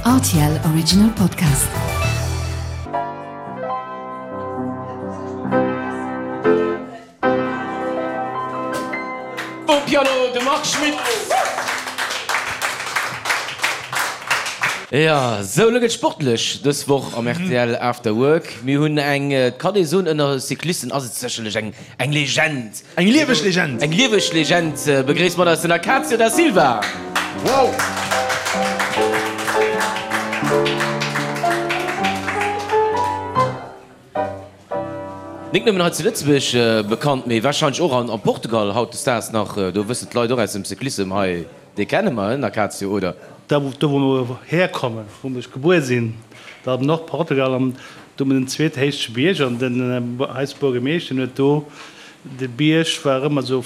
Rtl Original Podcast. Um Piano de Marc Schmitt. Jo, sou, elo gëtt sportlech dës Woch am rtl After Work. Mir hunn eng, et kann ee soen, ënner Cyclisten ass et sécherlech eng Eng Legend! Eng lieweg Legend! Eng lieweg Legend! Begréisst mat eis den Acacio da Silva! Wow! Nik nëmmen hei zu Lëtzebuerg bekannt, mee warscheinlech och an Portugal hautdesdaags nach. Do wëssen d'Leit och aus dem Cyclissem, hei, dee kenne mer, den Acacio, oder? Da wou mer herkommen, wou ech gebuer sinn, dat am Nordportugal, an do hu mer den zweethéichste Bierg, an den eis Buergemeeschter huet do, de Bierg war ëmmer esou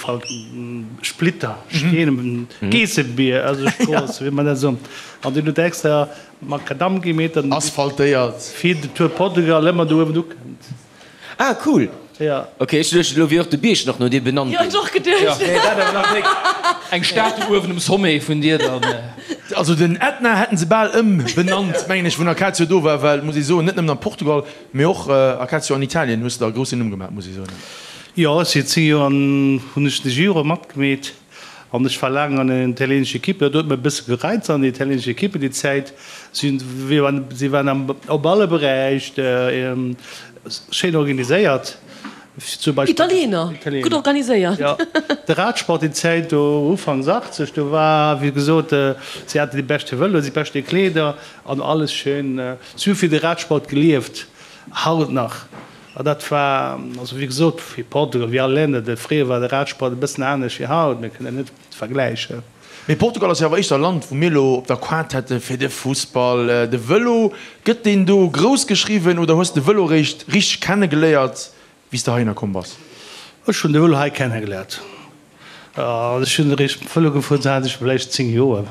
Splitter, Steen, Geessebier, also Strooss, wéi mer dat soen, an deen huet extra Makadamm gemeet, an Asphaltéiert. Fir de Tour Portugal ëmmer do uewen ukënnt. Ah cool! Ja. Ok, ech duecht elo wier och de Bierg nach no dir benannt Jo, ginn. ech och geduecht. Nee, dat awer nach nik. Eng Statue uewen um Sommet vun dir dann. Also den Ätna hätten se bal ëmbenannt, mengen ech, wou den Acacio do war, well, muss ee soen, net nëmmen an Portugal, mee och Acacio an Italien hues de der e groussen Numm gemaach, muss ee soen. Jo, ech si 10 Joer an hunn ech de Giro matgemeet. An ech war laang an der italienescher Equipe, dat huet mech e bësse gereizt an der italienescher Equipe déi Zäit. Si si waren am op alle Beräich schéin organiséiert. Zum Beispill Italiener, gutt organiséiert. Jo, de Radsport déi Zäit do ufanks 80, do war wéi gesot, si haten déi beschte Vëloen, déi beschte Kleeder an alles schéin. Si hu fir de Radsport gelieft, haut nach. A dat war, also wéi gesot, wéi Portugal, wéi all Länner, de fréier war de Radsport e bëssen anescht wéi haut, mir kënnen net vergläichen. Mee Portugal ass jo awer éischter e Land, wou mir elo op der Quart hätte fir de Fussball. De Vëlo, gëtt deen do grouss geschriwwen oder hues de Vëlo réischt richteg kennegeléiert, wéi s de heihinner komm bass? Ech hunn de Vëlo hei kennegeléiert. Ech hunn eréischt Vëlo gefuer, do hat ech vläicht 10 Joer,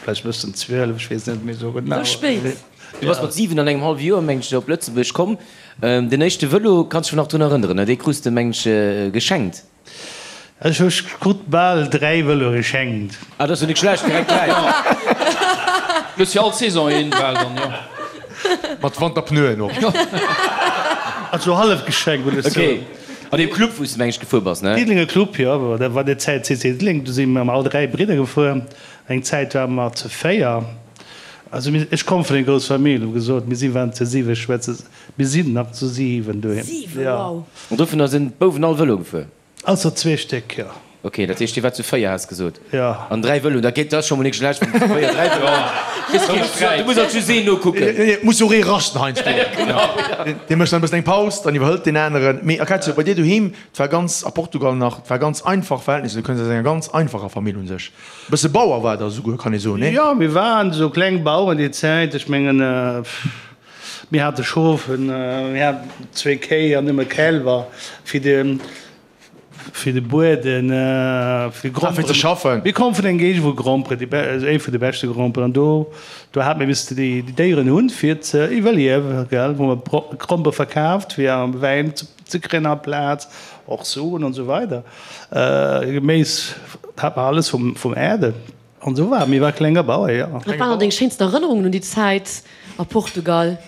vläicht e bëssen 12, ech weess net méi esou genau. Sou spéit? Du bass mat 7 an engem hallwe Joer, mengen ech, op Lëtzebuerg komm. Den éischte Vëlo, kanns dech nach drun erënneren, ne? Dee krus de, mengen ech, geschenkt. Ech hu krut bal 3 Vëloe geschenkt. Ah, dat ass jo nik schlecht, direkt 3. Du hues fir all Saison een bal dann, jo. Mat Wanterpneuen och. Also hallef geschenkt, wëll ech soen. Ok. An deem Club wou s de meng ech gefuer bass, ne? Diddelenger Club, jo, dat war déi Zäit CC Diddeleng, do si mir all 3 Bridder gefuer. Eng Zäit ware mer zu 4. Also mir, ech komme vun enger grousser Famill, wou gesot, mir si waren zu 7 Schwëster, mir sinn nach zu 7 doheem. 7, wow! An dovunner sinn d'Bouwen all Vëlo gefuer? Ausser zwee Stéck, jo. Ok, dat heescht dir waart zu 4 has gesot? Jo. An 3 Vëloen, dat geet, dat ass scho mol nik schlecht, wann zu 4 3 Vëloen hutt. Kee Sträit. Du muss alt just een nokucken. Et muss jo och ee raschten heiansdo. Dee mécht dann e bëssen eng Paus, dann iwwerhëlt deen aneren. Mee Acacio, bei dir doheem, et war ganz, a Portugal nach, et war ganz einfach Verhältnisser, du kënns aus enger ganz einfacher Famill un sech. E bësse Bauer war der esouguer, kann ee soen, nee? Jo, mir waren esou kleng Baueren déi Zäit. Ech mengen, mir hate Schof, mir haten zwéi Kéi an nëmme Kälwer fir de. Fir de Bueden, fir Gromperen. Fir ze schaffen. Mir komme vun engem Géigend wou Gromperen, déi ee vun de beschte Gromperen, an do, do hate mir missen déi Déieren hunn, fir ze iwwerliewen, gell, wou mer Grompere verkaaft, fir Wäin ze kréien amplaz, och Suen an esou weider. Geméis hat mer alles vum, vum Äerde an esou war. Mir war klenger Bauer, jo. Wat waren dann deng schéinsten Erënnerungen un déi Zäit a Portugal?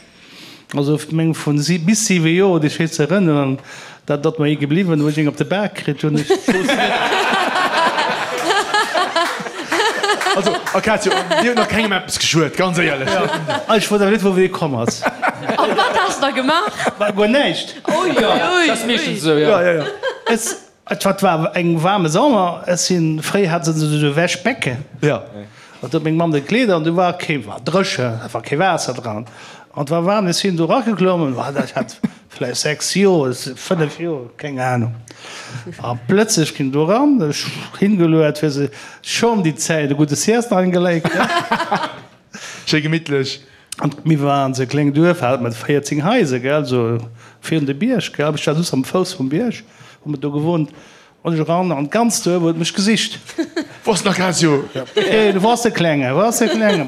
Also meng vun bis 7 Joer déi schéi ze erënneren, dat ass mer ee gebliwwen, wou ech eng op de Bak kritt hunn. Ech wousst net. Also Acacio, dir hutt nach kengem eppes geschuet, ganz éierlech. Ech wousst awer net wou dee komm ass. A wat has de da gemaach? Guer näischt. Ui, ui, ui. Dat ass meeschtens esou, jo. Ech. Et wat war eng waarme Sommer, ech sinn, fréi hat se esou Wäschbecken, Jo. An do huet meng Mamm de Kleeder an du war kee, war dréchen, et war kee Waasser dran an et war waarm. Ech sinn do erageklommen, ech hat vläicht 6 Joer, 5 Joer, keng Ahnung. A plëtzlech ginn do eran, ech hingeluet, fir se schonn déi Zäit e gudde Sieste eingeléit. Schéi gemittlech. An mir waren esou e kléngt Duerf, hat mat 14 Haiser, gell, esou virun de Bierg, gell. Ech war just am Fouss vum Bierg, hu mer do gewunnt. An ech eran an d'ganzt Duerf huet mech gesicht. Wou ass den Acacio? Hey, wou ass de Klenge? Wou ass de Klenge?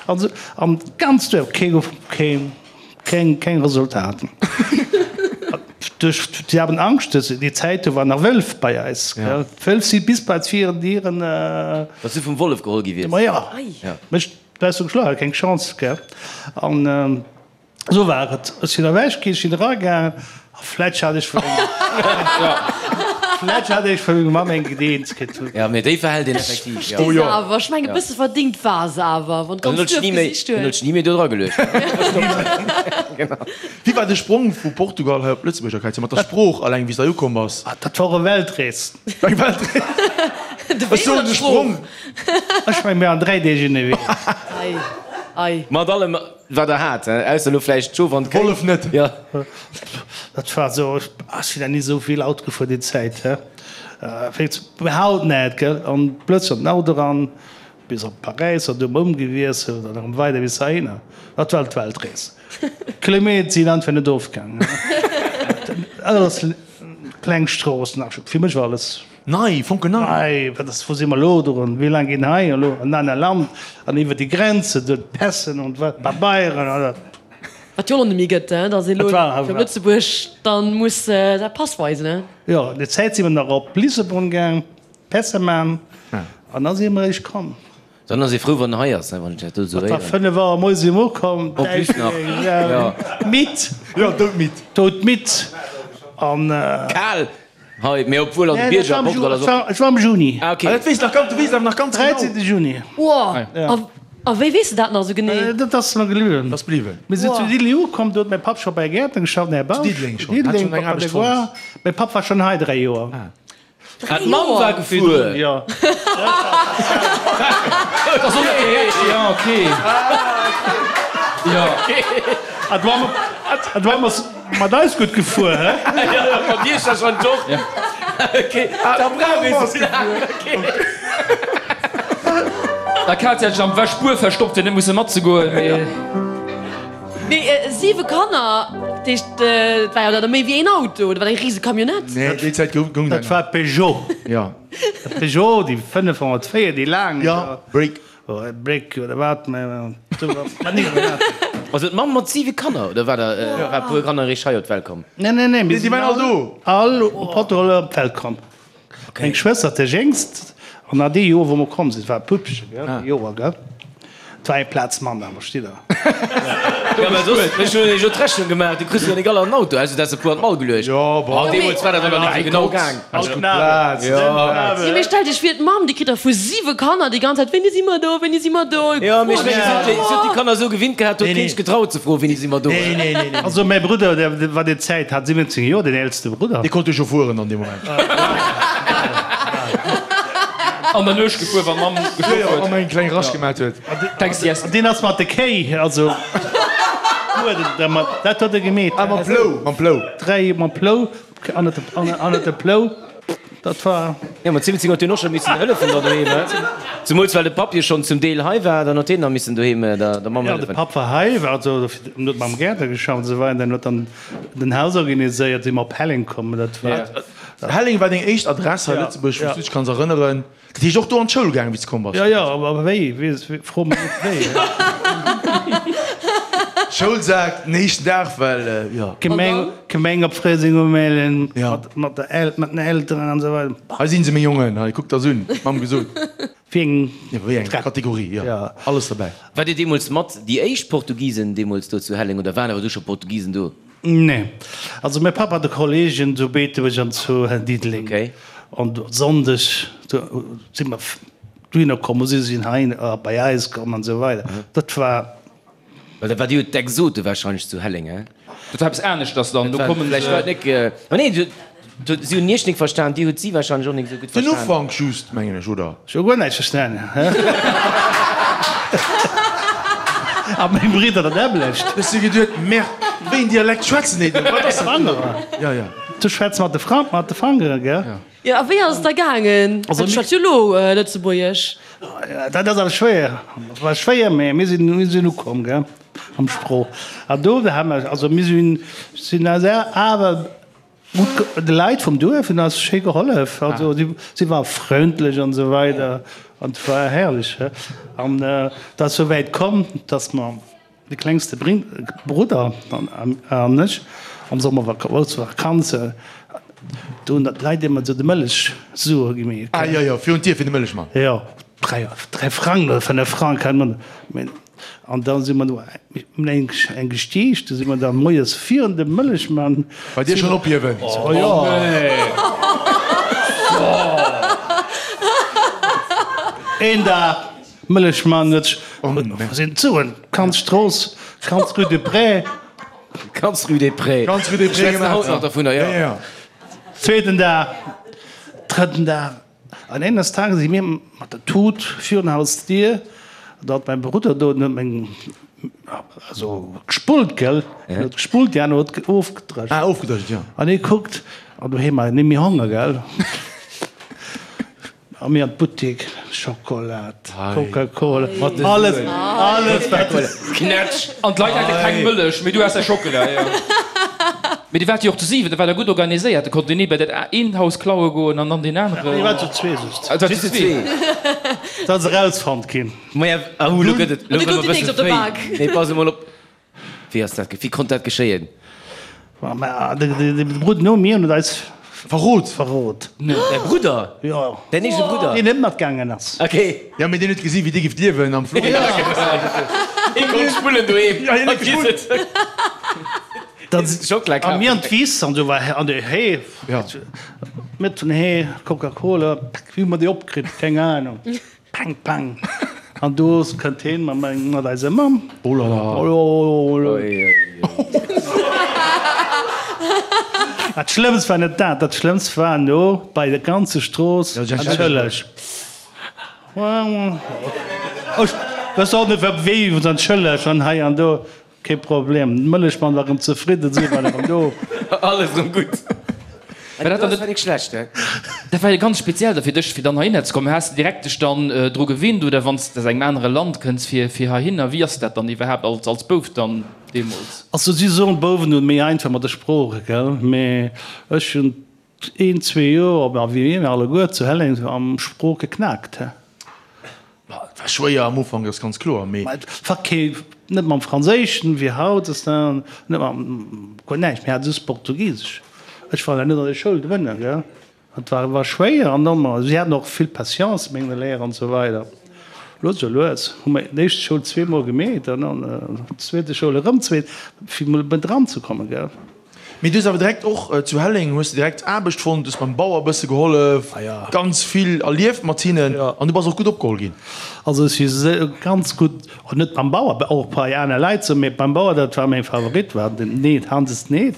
An esou, an d'ganzt Duerf, kee gouf, kee, keng, keng Resultaten. Duerch, sie haben Angscht, dass déi Zäit, do waren nach Wëlf bei eis, gell. D'Wëlf si bis bei d'Viren Dieren. Dass du vum Wollef geholl gi wiers? Ma jo. Mech. Leistung geschloen, hat keng Chance, gell. An esou war et. Ech sinn ewech ginn, ech sinn eragaangen a vläicht hat ech vu menger, vläicht hat ech vu menger Mamm eng gedeent kritt. Jo, mee déi verhält een effektiv, Ech jo. versti se awer. Ech mengen, e bësse verdingt war se awer, wann Dann d'ganz huet ech Duerf ni méi, gesicht dann huet huet. ech ni méi do dra geluecht. Genau. Wéi war de Sprong vu Portugal hei op Lëtzebuerg, Akatia, mat der Sprooch alleng, wéi s de hei ukomm bass? Dat war e Weltrees. Eng Weltrees? Ech soen de Sprong. Ech meng mir an 3 Deeg ënnerwee. Ei, ei. Mat allem wat der hat, he? Ausser elo vläicht d'Schof an d'Kéi. Wollef net. Jo. Dat war esou, ech sinn nach ni esou vill Auto gefuer déi Zäit, he. Wéi haut net, gell. An plötzlech an den Auto eran, bis op Paräis, an du ëmgewiesselt an erëm weider bis heihinner. Dat war d'Weltrees. Kilometer sinn einfach net ofgaangen. Alles kleng Stroossen, fir mech war alles. Nei, fonkelnei. Nei, wat ass, wou si mer elo drun? Wéi laang ginn hei elo an aner Land an iwwer déi Grenze, do d'Pässen und wat, d'Pabeieren an dat. Wat jo elo net méi gëtt, hein, datt ee elo fir op Lëtzebuerg dann muss säi Pass weisen, hein. Jo, déi Zäit si mer nach op Lissabon gaang, Pässe man an da si mer eréischt komm. Dann ass ee frou, wann en hei ass, wann ech dat do esou Et war héieren. 5 Auer moies si mer ukomm, En plus nach, jo. Midd. Jo, doudmidd. Doudmidd an. Kal hei, mee obwuel an de Bierger a Portugal ass och. Et war am Juni. Ah, ok. Ah, dat weess nach ganz, du weess awer nach ganz genau. 13. Juni. Wow, a wéi weess de dat nach esou genee? Dat ass mer bliwwen. Dat ass bliwwen. Mir sinn zu Diddeleng ukomm, do huet mäi Papp scho bei Gäertner geschafft, den Här Bausch. Zu Diddeleng schonn? Hat schonn eng Aarbecht fonnt? Mäi Papp war schonn hei 3 Joer. Ah, d'Mamm war gefuer. Jo. Ja, okay. Ja. A d'Mamm ass mat eis gutt gefuer, hä? Ja, mat Iech da schonn och. Okay, da brauch ee sou laang. Okay. Da Katja hat sech am Wäschbuer verstoppt, fir net musse matzegoen, mee. Mee 7 Kanner, dat heescht, et war jo da méi wéi een Auto, dat war eng rise Camionnette. Nee, déi Zäit goung dat Dat war Peugeot. Jo. De Peugeot, déi 504, déi laang. Jo, Break. Break oder wat, mä do war ni wat. Also d'Mamm mat 7 Kanner, oder war der war e puer Kanner eréischt hei op d'Welt komm? Nee, nee, nee, mir déi waren all do. All op Portugal op d'Welt komm. Meng Schwëster, déi jéngst, an an dee Joer, wou mer komm sinn, war e Puppchen, gell, dee Joer, gell, et war eng Plaz manner, verstitt Der? Jo, mä soss, ech hunn jo d'Rechnung gemaach, du kriss jo nik all an den Auto, ausser du häss e puer an d'Mall geluecht. Jo, bon. An deemools war dat awer net esou genau gaang. Plaz. Jo. Jo, mee stellt Iech vir, d'Mamm, déi kritt da vu siwe Kanner déi ganz Zäit, Wéini si mer do, wéini si mer do? Jo, mee ech mengen, si huet déi Kanner esou gewinnt gehat, do huet keen sech getraut ze froen, Wéini si mer do? Nee, nee, nee, nee. Also mäi Brudder, dee war déi Zäit, hat 17 Joer, deen eelste Brudder. Dee konnt jo scho fueren an deem Moment. An der Nuecht gefuer, wann d'Mamm geschlof huet. An eng kleng Rasch gemat huet. An deen ass mat de Kéi, also dat huet e gemeet. Ah, mam Plou, mam Plou. Dräi mam Plou, annert de Plou, dat war. Jo, mat 17 huet hien och scho missen hëllefen da doheem, he? Zemools well de Papp jo schonn zum Deel hei war, dann huet hien nach missen doheem der Mamm Jo, de hëllefen. Papp war hei, war also, huet mam Gäertner geschafft an esou weider, an huet dann den Haus organiséiert, si mer op Helleng komm, dat war. Helleng war deng éischt Adress hei a Lëtzebuerg, wou s du dech kanns erënneren. Dat heescht och do an d'Schoul gaangen, wéi s de komm bass? Jo, jo, awer wéi? Fro mech net wéi. Schoulsak den éischten Dag, well jo. Gemeng, Gemeng op Fréiseng umellen, mat der El, mat den Elteren an esou weider. Hei si se, meng Jongen, hei, kuckt der se un, d'Mamm gesot. Wéi eng. Jo, wéi eng Kategorie, jo, alles derbäi. Waart Dir deemools mat déi éischt Portugisen deemools do zu Helleng oder waren awer du scho Portugisen do? Nee. Also mäi Papp hat e Kollegen zu Beetebuerg an zu Diddeleng. Okay. An Sonndeg do si mer dohinner komm, si sinn hei bei eis komm an esou weider. Dat war. Well dat war jo d'Exote wahrscheinlech zu Helleng, he? Dat war eppes aneschters dann. Do kommen se. Vläicht war et nik. Ma nee, Si hunn iech nik verstan, dir hutt si wahrscheinlech och nik esou gutt Den verstan. Ufank just, mengen ech, oder? Ech hu guer näischt verstan. A meng Bridder dat nämmlecht. Ech si geduet, Merde, wéi een Dialekt schwätzen déi do? Wat ass dat do? Ja, ja. Du schwätz mat de Fra, mat de Fangeren, gell? Jo, a wéi ass et da gaangen? Also Du schwätz jo elo Lëtzebuergesch. Dat ass awer schwéier. Dat war schwéier, mä mir sinn, mir sinn ukomm, gell, am Sprooch. A do ha mer, also mir sinn, sinn awer Gutt, de Leit vum Duerf hunn eis schéi gehollef. Also si ware frëndlech an esou weider an et war herrlech. An et ass esou wäit komm, datt mer, de klengste Brudder an ech, am Summer grouss Vakanze, do hunn d'Leit ëmmer esou de Mëllechsuer gemeet. Ah jo, jo, virun d'Dier fir de Mëllechmann. Jo. 3 Frang oder 5 Frang, keng Ahnung. An da si mer no eng eng gestiicht, du si mer da moies virun dem Mëllechmann. Bei dir schonn ophiewen? Oh jo. Een Dag, Mëllechmann huet sech, wou sinn d'Suen? Ganz Strooss, ganz Rue des Prés. Ganz Rue des Prés. Ganz Rue des Prés Schwätzen haut nach dovunner, jo. Zweeten Dag, drëtten Dag. An eines Tages si mir mat der Tut virun Haus Dier, da hat mäi Brudder do, den huet meng, also gespullt, gell, en huet gespullt, déi aner huet ofgedrëscht. Ah, ofgedrëscht, jo. An hie kuckt, an doheem war net méi Honger, gell. A mir an d'Buttik, Schokolat, Coca-Cola, alles, alles wat. Knätsch! An d'Leit hate keng Mëllech, mee du has däi Schockela, jo. Mee dir waart jo och zu 7, da waart der gutt organiséiert, da konnt een ee bei dat eent Haus klaue goen an dann deen aneren. Mir waren zu zwee just. Ah, et war zu zwee. Dat ass erausfonnt ginn. Maja, ahu, lo gëtt et, lo An du gëtt gouf et e déi nächst bësse op de fréi. Bak. Nee, pass emol op. Wéi ass dat, wéi konnt dat geschéien? Ma de Brudder no mir huet eis Verrot! Verrot. Däi Brudder? Jo. Däin eegene Brudder? Deen net matgaangen ass. Ok. Jo, mee deen huet gesi wéi dir gift liewen am Florida. Hie konnt spullen doheem. Jo, hien huet gespullt. Schockela A mir an kafen. d'Wiss an do war an de Hee, mat vun Hee, Coca-Cola, wéi hu mer déi opkritt, keng Ahnung. Pang, pang. An do kënnt heen mat meng, mat eiser Mamm. Oh la la. Oh la la. Dat Schlëmmst war net dat, dat Schlëmmst war no bei der ganze Strooss, Entschëlleg. Ech wëss och net wat wéi, entschëlleg an hei an do. Kee Problem, den Mëllechmann war rem zefridden, si waren rem do. Alles rem gutt. War dat dann net schlecht, he? Dat war jo ganz speziell da fir dech, fir dann heihinner ze kommen. Has de direkt dech dann dru gewinnt oder wann s de aus engem anere Land kënns fir fir heihinner? Wéi ass dat dann iwwerhaapt als als Bouf dann deemools? Also si soen, d'Bouwen hunn méi einfach mat de Sprooche, gell, mee ech hunn een, zwee Joer, a wéi mir alleguer zu Helleng am Sprooch geknaakt, he. Ma et war schwéier am Ufank, dat ass ganz kloer, mee. Ma et war kee, net mam Franséischen, wéi haut, ass dat, net mam, guer näischt, mir hate just Portugisesch. Ech war net an der Schoul drënner, gell. Et war, war schwéier an dann, ma si haten och vill Patience, meng Léier an esou weider. Lues a lues hu mer d'éischt Schoul zweemol gemeet an dann d'zweete Schoul erëm zweet, fir mol dran ze kommen, gell. Mee du hues awer direkt och zu Helleng hues de direkt Aarbecht fonnt, hues beim Bauer e bësse gehollef, ganz vill erlieft mat hinnen an du bass och gutt opgeholl ginn. Also ech si ganz gutt, net beim Bauer, och bei aner Leit sou, mee beim Bauer, dat war mäin Favorit, war den Ned, Hanses Ned.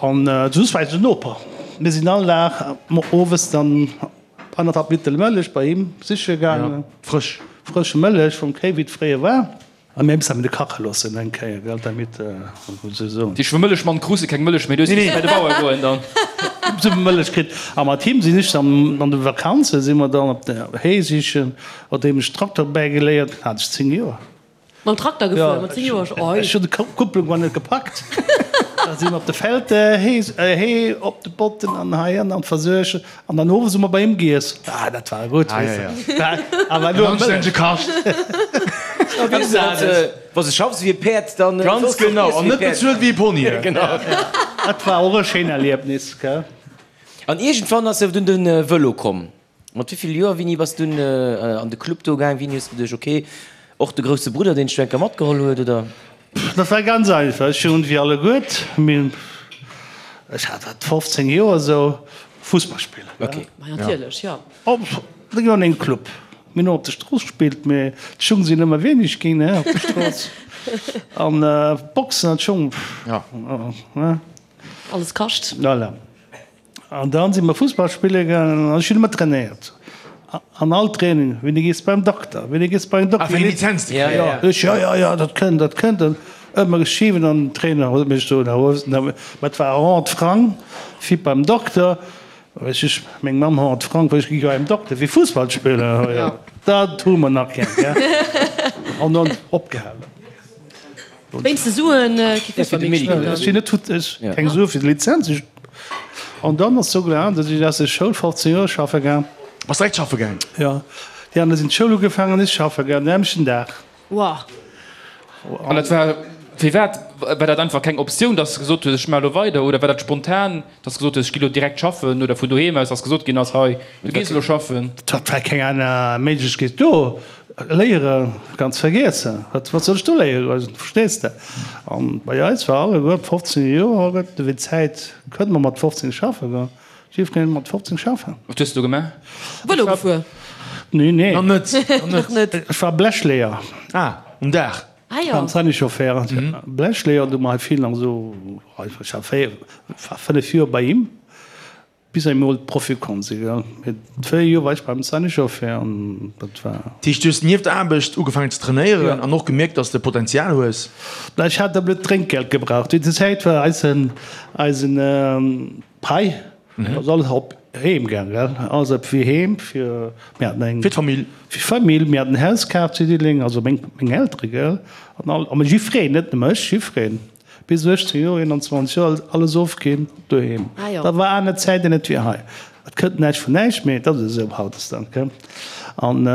An soss war eise Noper. Mir sinn all Dag owes dann annerthalb Liter Mëllech bei him siche gaangen. Frësch. Frësch Mëllech vum Kéi, wéi et fréier war. A mir mussen de kache loossen eng Kéier, gell, damit se soen. Déi Mëllechmann kruse keng Mëllech méi, du hues missen bei de Bauer goen dann. Hu se Mëllech kritt. A mat him sinn ech dann an de Vakanze si mer dann op de Hee sichen, nodeem ech Trakter bäigeléiert hat, ech 10 Joer. Mam Trakter gefuer mat 10 Joer? Jo, ech hunn d'Kupplung war net gepackt. Da si mer op de Feld Hee, Hee op de Botten an hei an an versuergen. An dann owes hu mer bei him giess. Ah, dat war gutt, weess de. Awer elo am Anstännege Kascht. Wa se schaffs wéi e Päerd, dann. Ganz genau, an net bezuelt wéi e Pony. Genau. Dat war och e schéin Erliebnis, gell. An iergendwann ass jo dunn de Vëlo komm. Mat wéi vill Joer, Winnie, bass dunn an de Club do gaang? Wéini hues de geduecht, ok, och de grousse Brudder, deen dech do eng Kéier matgeholl huet, oder? Dat war ganz einfach. Ech hunn, wéi alleguert, mir, ech hat wat 15 Joer esou, Fussball spillen. Ok. Ma natierlech, jo. Op, da gi mer an een Club. Mir hunn och op der Strooss gespillt, mee d'Schung sinn ëmmer wéineg ginn, ne, op der Strooss. An Boxen an d'Schung, ne. Alles kascht. Voilà. An dann si mer Fussball spille gaangen an ech hunn ëmmer trainéiert. An all Training, Wéini gees de beim Dokter? Wéini gees de beim Dokter? Ah, fir eng Lizenz ze kréien? Jo, ech, jo, jo, jo, dat kënnt, dat kënnt. An ëmmer geschiwwen an den Trainer huet mech do, mä et war 100 Frang fir beim Dokter. Ech, ech, meng Mamm 100 Frang, well ech gi jo beim Dokter fir Fussball spillen. Jo, dat hu mer nach keng, gell. An dann opgehalen. Wéinst de Suen kee Fussball méi gespillt Ech sinn net ech keng Sue fir d'Lizenz. Ech an dann ass sou gelaf, datt ech aus der Schoul 15 Joer schaffe gaang. Bass direkt schaffe gaang? Jo, déi aner sinn d'Schoul ugefaangen an ech schaffe gaang den nämmlechten Dag. Wow. An dat war. Firwat? War dat einfach keng Optioun, dass de gesot hues, ech maache lo weider? Oder war dat spontan, dass de gesot hues, ech gi lo direkt schaffen? Oder vun doheem aus, dass gesot ginn ass, hei, du gees elo schaffen? Et war keng aner Méiglechkeet do. Léiere ganz vergiessen. Wat wat soll ech do léiere goen, verstees de? An bei eis war alleguer ab 15 Joer, gëtt ewéi d'Zäit, kënnt mer mat 15 schaffe goen. Jiddwereen mat 15 schaffen. Wat hues de do gemaach? Vëlo gefuer? Nee, nee. Nach net, nach net. Ech war Blechleeër. Ah, um Daach. Ah jo. Beim Sanichauffeur. Blechleeër, do hu mer hei vill nach esou, ech war 4, war 5 Joer bei him, bis emol d'Profi komm si, gell. Mee 4 Joer war ech beim Sanichauffeur an dat war. Dat heescht, du hues nieft der Aarbecht ugefaangen ze trainéieren an och gemierkt, dass de Potenzial hues? Ech hat e blöd Drénkgeld gebraucht. Déi Zäit war eisen, eisen. Pai, ass alles op heem gaang, gell? Alles op fir heem, fir mir haten eng. Fir d'Famill. Fir d'Famill. Mir haten en Haus kaf zu Diddeleng, also meng, meng Eltere, gell? An all, a jiffreen, net nëmme ech, jiffreen. Bis 18 Joer, 21 Joer, alles ofginn doheem. Ah jo. Dat war aner Zäiten, net wéi hei. Et kënnt näischt vun näischt, mee et ass esou hautdesdaags, gell? An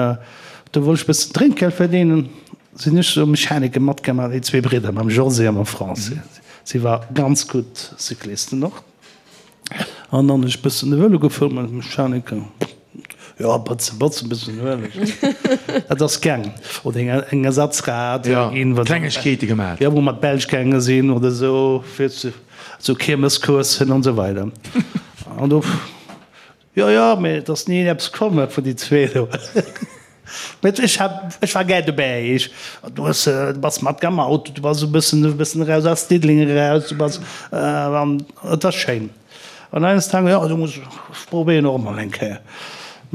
do wollt ech e bëssen Drénkgeld verdienen, sinn ech esou Mechaniker matgemaach, déi zwee Bridder, mam José a mam Francis. Si war ganz gutt Cyclisten och. An dann ech bëssen de Vëlo gefuer mat Mechaniker. Jo, bëtzen, bëtzen, bëssen Ueleg. Dat ass gaang. Oder eng, eng Ersatzrad Ja, ginn, wat Klengegkeete gemaat. Ja, wou mer d'Belsch gaange sinn oder esou, fir ze, sou Kiermescourssen an esou weider. An do. Jo, jo, mee et ass ni eppes komm vun déi zwee do. Mee ech hat, ech war gär dobäi. Ech, du hues, du bass mat am Auto, du bass e bëssen, e bëssen eraus aus Diddeleng eraus, du bass, an et war schéin. An eines Tages, jo, du muss, ech probéieren och emol eng Kéier.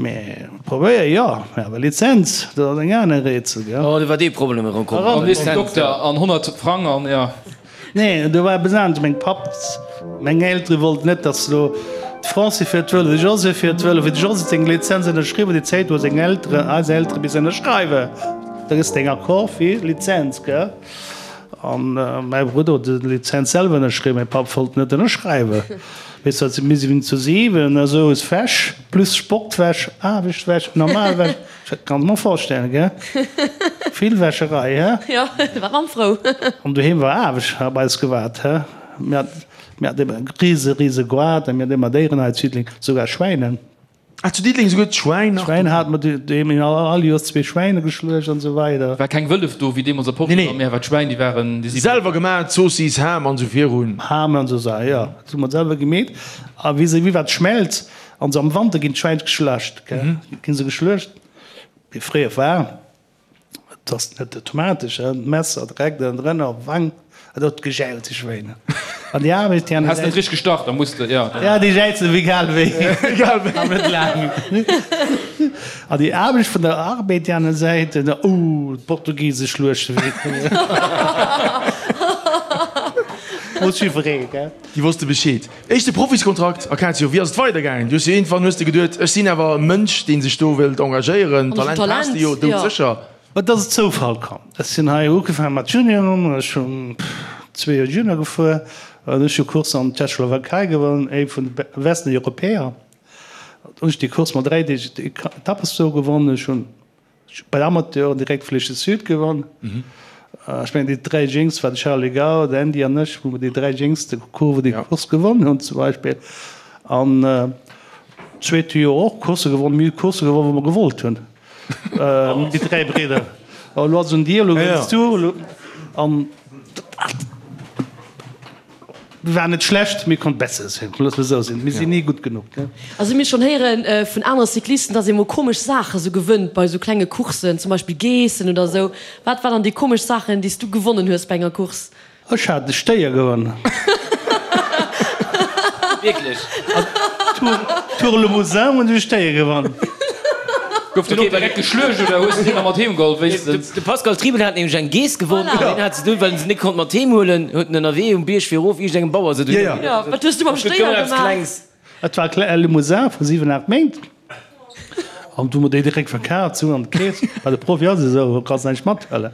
Mee probéier, jo, mee awer Lizenz, dat ass eng aner Rätsel, gell. Oh, do war dee Problem erëm komm. An nees den Dokter an 100 Frang an, jo. Nee, do war eppes anescht. Meng Papp, meng Eltere wollten net, datt elo d'Francy fiert Vëlo, de José fiert Vëlo. Fir de José seng Lizenz ënnerschriwwen, déi Zäit hu seng Elteren, eis Eltere missen ënnerschreiwen. Da gëss deng Accord fir Lizenz, gell? An mäi Brudder huet de Lizenz selwer ënnerschriwwen, mäi Papp wollt net ënnerschreiwen. Weess wat, mir sinn zu 7, esou is Wäsch, plus Sportwäsch, Aarbechtwäsch, Normalwäsch. Dat kann ech mer vorstellen, gell? Vill Wäscherei, hä? Jo, da war d'Mamm frou. An doheem war Aarbecht op eis gewaart, hä? Mir hat, mir haten ëmmer e rise, rise Goart a mir haten ëmmer Déieren hei zu Diddeleng, sougar Schwäinen. Ah, zu Diddeleng souguer d'Schwäin nach? Schwäin hate mer doheem, mir hunn all Joers zwee Schwäine geschluecht an esou weider. War keng Wëllef do wéi deemools a Portugal, mee awer d'Schwäin, déi waren, déi si. Selwer gemaach, Zoossiss, Ham an esou virun. Ham an esou Saachen, jo, dat hu mer selwer gemeet. A wéi se, wéi war d'Schmelz? An se am Wanter ginn d'Schwäin geschlacht, gell, ginn se geschluecht. Wéi fréier war, et ass net automatesch, hein, d'Messer direkt ënnendrënner op d'Wang, et huet gejäilt, déi Schwéin. An déi Aarbecht, déi Has net richteg gestach, da muss de, jo. Ja, déi jäizen ewéi egal wéi, Egal wéi. Awer net laang. An déi Aarbecht vun der Arbed, déi aner Säit, oh, d'Portugise schluechte wéi. Muss jiwweree, gell. Déi wosste Bescheed. Éischte Profiskontrakt, Acacio, wéi ass et weidergaangen? Du hues jo iergendwann hues de geduet, ech sinn awer e Mënsch, dee sech do wëllt engagéieren, Talent has de jo doudsécher. Et ass e Zoufall komm. Ech sinn hei ugefaange mat Junioren, ech hunn zwee Joer Junior gefuer an ech hu Course an Tschechoslowakei gewonnen, ee vun de besten Europäer. Hunn ech déi Course mat 3 Deeg Etappes do gewonnen. Ech hunn Bei Amateuren direkt Flèche Sud gewonn. Ech mengen déi 3 Jéngst war de Charly Gaul, de Andy an ech, wou mer déi 3 jéngste Course déi Course gewonn hunn zum Beispill. An zweete Joer och Coursse gewonn. Mir hu Coursse gewonn wou mer gewollt hunn, déi 3 Bridder. Elo ass et un dir, elo gewënns du. An Mir waren net schlecht, mee konnt besser sinn. Loosse mer esou sinn, mir sinn ni gutt genuch. Also mir schonn héiere vun anere Cyclisten, dass ee mol komesch Saache sou gewënnt bei sou klenge Courssen, zum Beispill Geessen oder sou. Wat war dann déi komesch Saachen, déi s du gewonnen hues bei enger Course? Ech hat e Stéier gewonnen. Wierklech? Tour Limousin hunn ech e Stéier gewonnen. Gouf den och direkt geschluecht oder hues de deen nach mat heem geholl wéinstens? De Pascal Triebel hat nämlech eng Geess gewonnen an deen hat se dunn, well en se net konnt mat heem huelen, huet en ënnerwee um Bierg fir erof iergendengem Bauer se dunn. Jo, wat hues du mam Stéier gemaach? Et war e Limousin vu 7, 8 Méint an du hu mer déi direkt verkaaft, sou an d'Keess. Bei de Profi ass et esou, do kanns näischt mathuelen.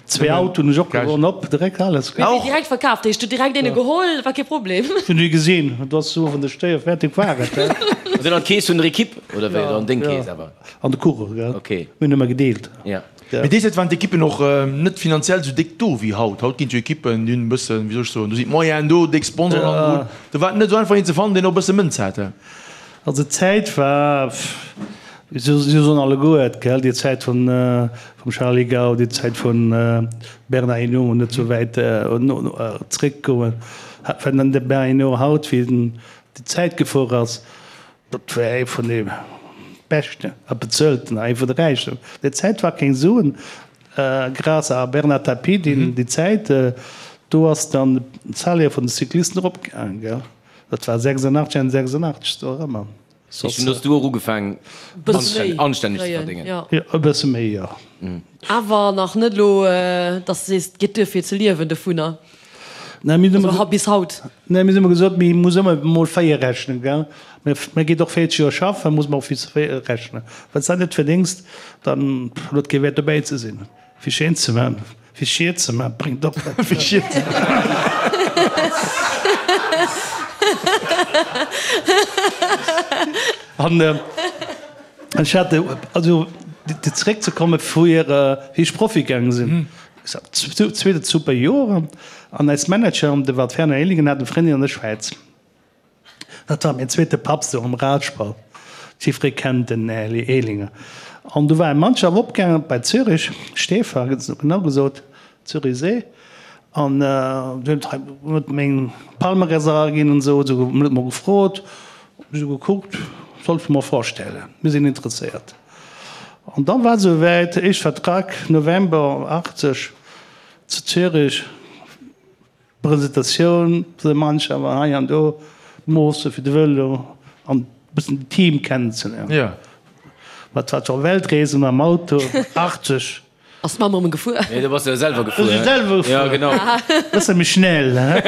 Zwee Autoen hunn ech och gewonnen, op direkt alles. Mee wéi direkt verkaaft heescht, du direkt een geholl, war kee Problem? Ech hunn déi gesinn, et ass sou, wann de Stéier fäerdeg war et. An dunn an d'Keess vun der Equipe, oder wéi? Oder an deng Keess awer? An de Coureur, gell. Okay. Mir hunn ëmmer gedeelt. Ja. Mee déi Zäit waren d'Ekippen och net finanziell esou déck do wéi haut. Haut ginn et jo Ekippen, déi hunn e bëssen, wéi soll ech soen, do sinn d'Moyenen do, déck Sponsoren hannendrun. Do war et net esou einfach een ze fannen, deen och e bësse Mënz hat. Also d'Zäit war, si soen alleguer et, gell, déi Zäit vum Charly Gaul, déi Zäit vum Bernard Hinault, net esou wäit zréckgoen, well de Bernard Hinault haut, wéi en déi Zäit gefuer ass, Dat war ee vun de beschten a bezuelten a ee vun de räichsten. Déi Zäit war keng Suen, grâce à Bernard Tapie, deen déi Zäit, do ass dann d'Salaire vun de Cyclisten eropgaangen, gell. Dat war 86, Enn 86, do erëmmer. Dunn hues du och ugefaangen anstänneg ze verdéngen? Jo, e bësse méi, jo. Awer nach net elo, dass de sees, et geet duer fir ze liewen dovunner? Mir hunn ëmmer bis haut. Nee, mir hunn ëmmer gesot, mir muss ëmmer mol 4 rechnen, gell. Mir geet och 40 Joer schaffen, muss mer och bis 4 rechnen. Wann s dat net verdéngst, dann huet et kee Wäert dobäi ze sinn. Fir schéin ze man, fir schier ze man, bréngt och net. Fir schier ze man. An ech hat, also zeréckzekomme fir wéi ech Profi gaange sinn, Zweet super Joer an eis Manager, de Walt Werner Ehligen, hat e Frëndin an der Schwäiz. Dat war mäin zweete Papp sou am Radsport. Jiffree kennt den Här Ehlinger. An du war eng Mannschaft opgaangen bei Zürich, Stäfa genau gesot, Zürichsee. An du huet huet meng Palmarès eraginn an esou, esou huet mol gefrot, esou gekuckt, sollte mer vorstellen, mir sinn interesséiert. An dann war et esou wäit, éischt Vertrag, November 80 zu Zürich, Presentatioun vun der Mannschaft an hei an do, Moosse fir de Vëlo an e bëssen den Team kennenzeléieren. Jo. Wat war zwar Weltreesen mam Auto, 80. Ass d'Mamm erëm gefuer? Nee, do bass de jo selwer gefuer. Do si selwer gefuer. Jo, genau. Bësse méi schnell, he?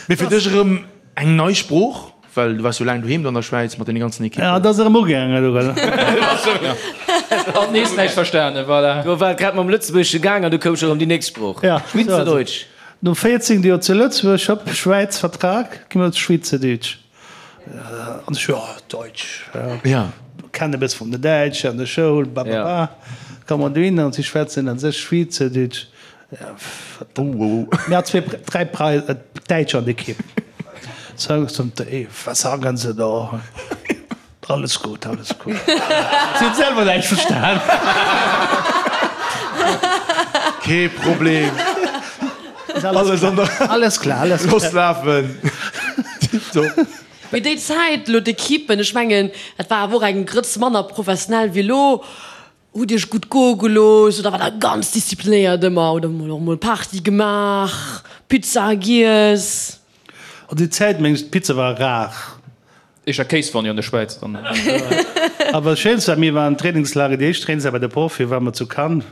Mee fir dech erëm Eng nei Sprooch, well du waars jo laang doheem do an der Schwäiz mat deene ganzen Ekippen. Ja, et ass erëm ugaangen elo, gell? Hat nees näischt verstanen, voilà. Do war et grad mam Lëtzebuergesche gaang an du koum scho rëm déi nächst Sprooch, Schwyzerdeutsch. No 14 Joer zu Lëtzebuerg, hopp, Schwäiz, Vertrag, gi mer Schwyzerdeutsch. An ech, jo, Deutsch, ja, kennen e bësse vun der Däitsch an der Schoul, bababa. Komm mer dohin an si schwätzen a sech Schwyzerdeutsch. Mir hat zwee, dräi Däitsch an der Ekipp. Was sagen Sie da? Alles gut, alles gut. Si hunn selwer näischt verstan. Kee Problem. Alles an der. Alles klar, alles klar. Looss lafen. Tiptop. Mee déi Zäit elo, d'Ekippen, ech mengen, dat war awer och eng Grëtz manner professionell wéi elo. Hutt Iech gutt goe gelooss oder war der ganz disziplinéiert ëmmer oder mol och mol Party gemaach, Pizza giess? An déi Zäit mengen ech d'Pizza war rar. Éischter Kéiswanni an der Schwäiz dann. Awer schéinst war mir waren Trainingslager, déi éischt Trainingslager bei de Profie ware mer zu Cannes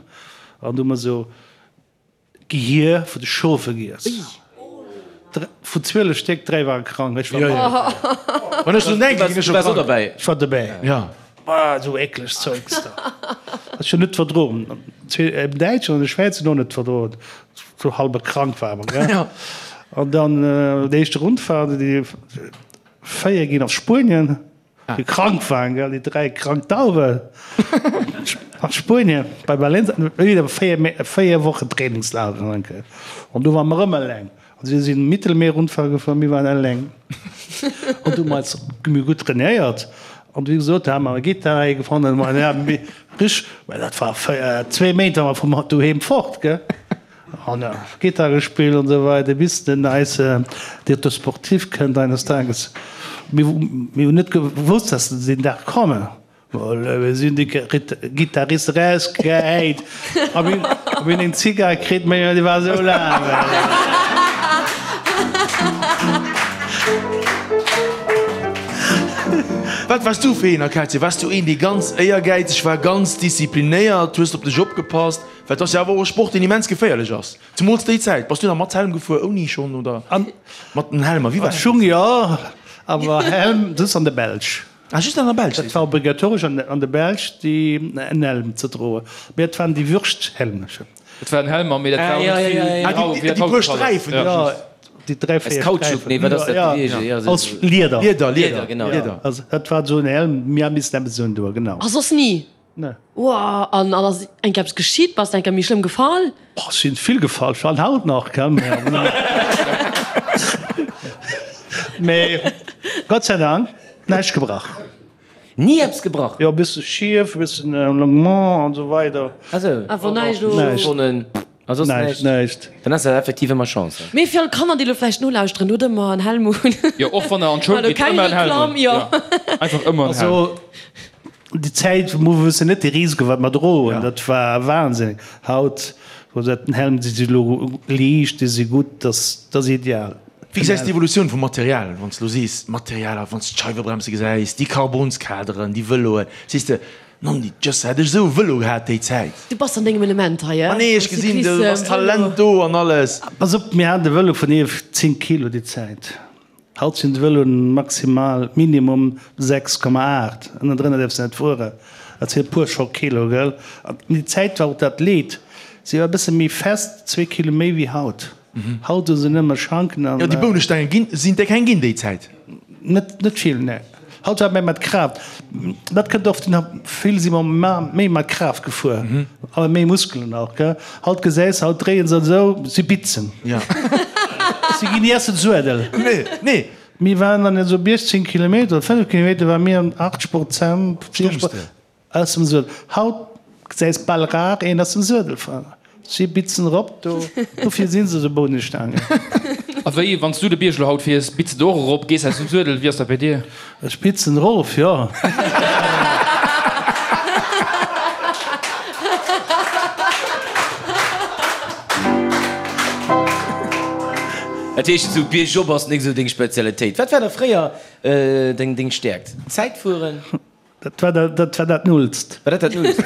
an du hu mer esou Gehier vu de Schofe giess. Vun 12 Stéck, 3 ware krank. Ech war mat. Wann ech drun denken, ginn ech scho krank. Ech war dobäi. Bah, esou eklegt Zeugs da. Ech hunn net verdroen. Zwee Däitschen an e Schwäizer hunn och net verdroen. Sou halbe krank ware mer, gell. An dann déi éischte Rundfahrt, déi 4 ginn op Spuenien. Déi krank waren, gell, déi 3 krank Dauwen a Spuenien bei Valencia, wieder 4 Wochen Trainingslager enke. An do ware mer erëm eleng. An si sinn Mittelmeer-Rundfahrt gefuer, mir waren eleng. An du hu mer eis méi gutt trainéiert. An wéi gesot, da hu mer e Gittar hei gefannen, ma ja, rich, well dat war zwee Méint ware mer vum doheem fort, gell. An Gittar gespillt an esou weider bis den eise Directeur sportif kënnt eines Tages. Mir hunn net gewosst, dass se deen Dag kommen. Mir sinn déi Gittarist erausgehäit a mir hunn eng Zigar kritt, mä déi war esou laang. Wat waars du fir een, Acacia? Waars du een, dee ganz éiergäizeg war, ganz disziplinéiert? Hues de op dech opgepasst? Well et ass jo awer och e Sport, deen immens geféierlech ass. Zemools déi Zäit. Bass du nach mat Helm gefuer, ouni schonn oder mat den Helmer? Wéi war dat? Schung jo, awer Helm just an der Belsch. Ah, just an der Belsch? Dat war obligatoresch an der Belsch, déi en Helm ze droen. Mee et waren déi Würschthelm. Et waren Helmer, mee dat war och net vill. Ah, déi puer Sträifen. Jo. Déi 3, 4 Kautschuk, nee, wat ass dat gewiescht? Ja, aus Lieder. Lieder, Lieder, genau. Lieder. Also dat war esou en Helm, mir hu missen eppes undoen, genau. A soss ni? Nee. Woah, an ass eng Kéier eppes geschitt? Bass de eng Kéier méi schlëmm gefall? Boah, ech sinn vill gefall, ech falen haut nach, gell, mee Gott sei Dank näischt gebrach. Ni eppes gebrach? Jo, e bësse schief, e bëssen Longuement an esou weider. Ah sou. Awer näischt elo. A soss näischt? Näischt. Dann ass dat effektiv ëmmer Chance. Mee fir all Kanner, déi elo vläicht nolauschteren, hutt ëmmer en Helm un. Jo, och wann der an d'Schoul gitt, ëmmer en Helm un. Jo. Einfach ëmmer en Helm. Also déi Zäit, wou mer wëssen net de Risiko wat mer droen, dat war wahnsinnig. Haut, wou dat den Helm, déi si elo liicht, déi si gutt, dat ass ideal. Wéi gesäis de d'Evolutioun vum Material, wann s de elo sees, d'Materialer, wann s de d'Scheiwebremse gesäis, déi Carbonskaderen, déi Vëloen, sees de, Nonni, just hätt ech esou e Vëlo gehat déi Zäit. Du bass an dengem Element hei, Ma nee, ech gesinn, do ass Talent do an alles. Pass op, mir haten e Vëlo vun 11, 10 Kilo déi Zäit. Haut sinn d'Vëloen maximal, minimum 6,8. Ënnendrënner däerfs de net fueren. Dat sinn e puer scho Kilo, gell? An déi Zäit war och dat Leed, si war e bësse méi fest, zwee Kilo méi wéi haut. Haut hu se nëmme Schanken an. Jo, déi Bounestaange ginn, sinn der keng ginn déi Zäit? Net, net vill, nee. Haut war méi mat Kraaft. Dat kënnt och vun, vill si mer méi mat Kraaft gefuer, awer méi Muskelen och, gell. Haut gesäis, haut dréie se esou, si bitzen. Jo. Si ginn ni aus dem Suedel. Nee, nee. Mir waren dann esou bis 10 Kilometer oder 5 Kilometer war mir an 80 Prozent. Stoungs de? Aus dem Suedel. Haut gesäis bal rar een aus dem Suedel fahren. Si bitzen erop do, dofir sinn se esou Bounestaangen. A wéi, wann s du de Bierg elo haut fiers, bitz de och erop, gees aus dem Suedel, wéi ass dat bei dir? Ech bitzen erof, jo. Dat heescht, esou biergop ass nik esou deng Spezialitéit. Wat war da fréier deng Stäerkt? Zäitfueren? Dat war dat, dat war dat Nullst. War dat dat Nullst?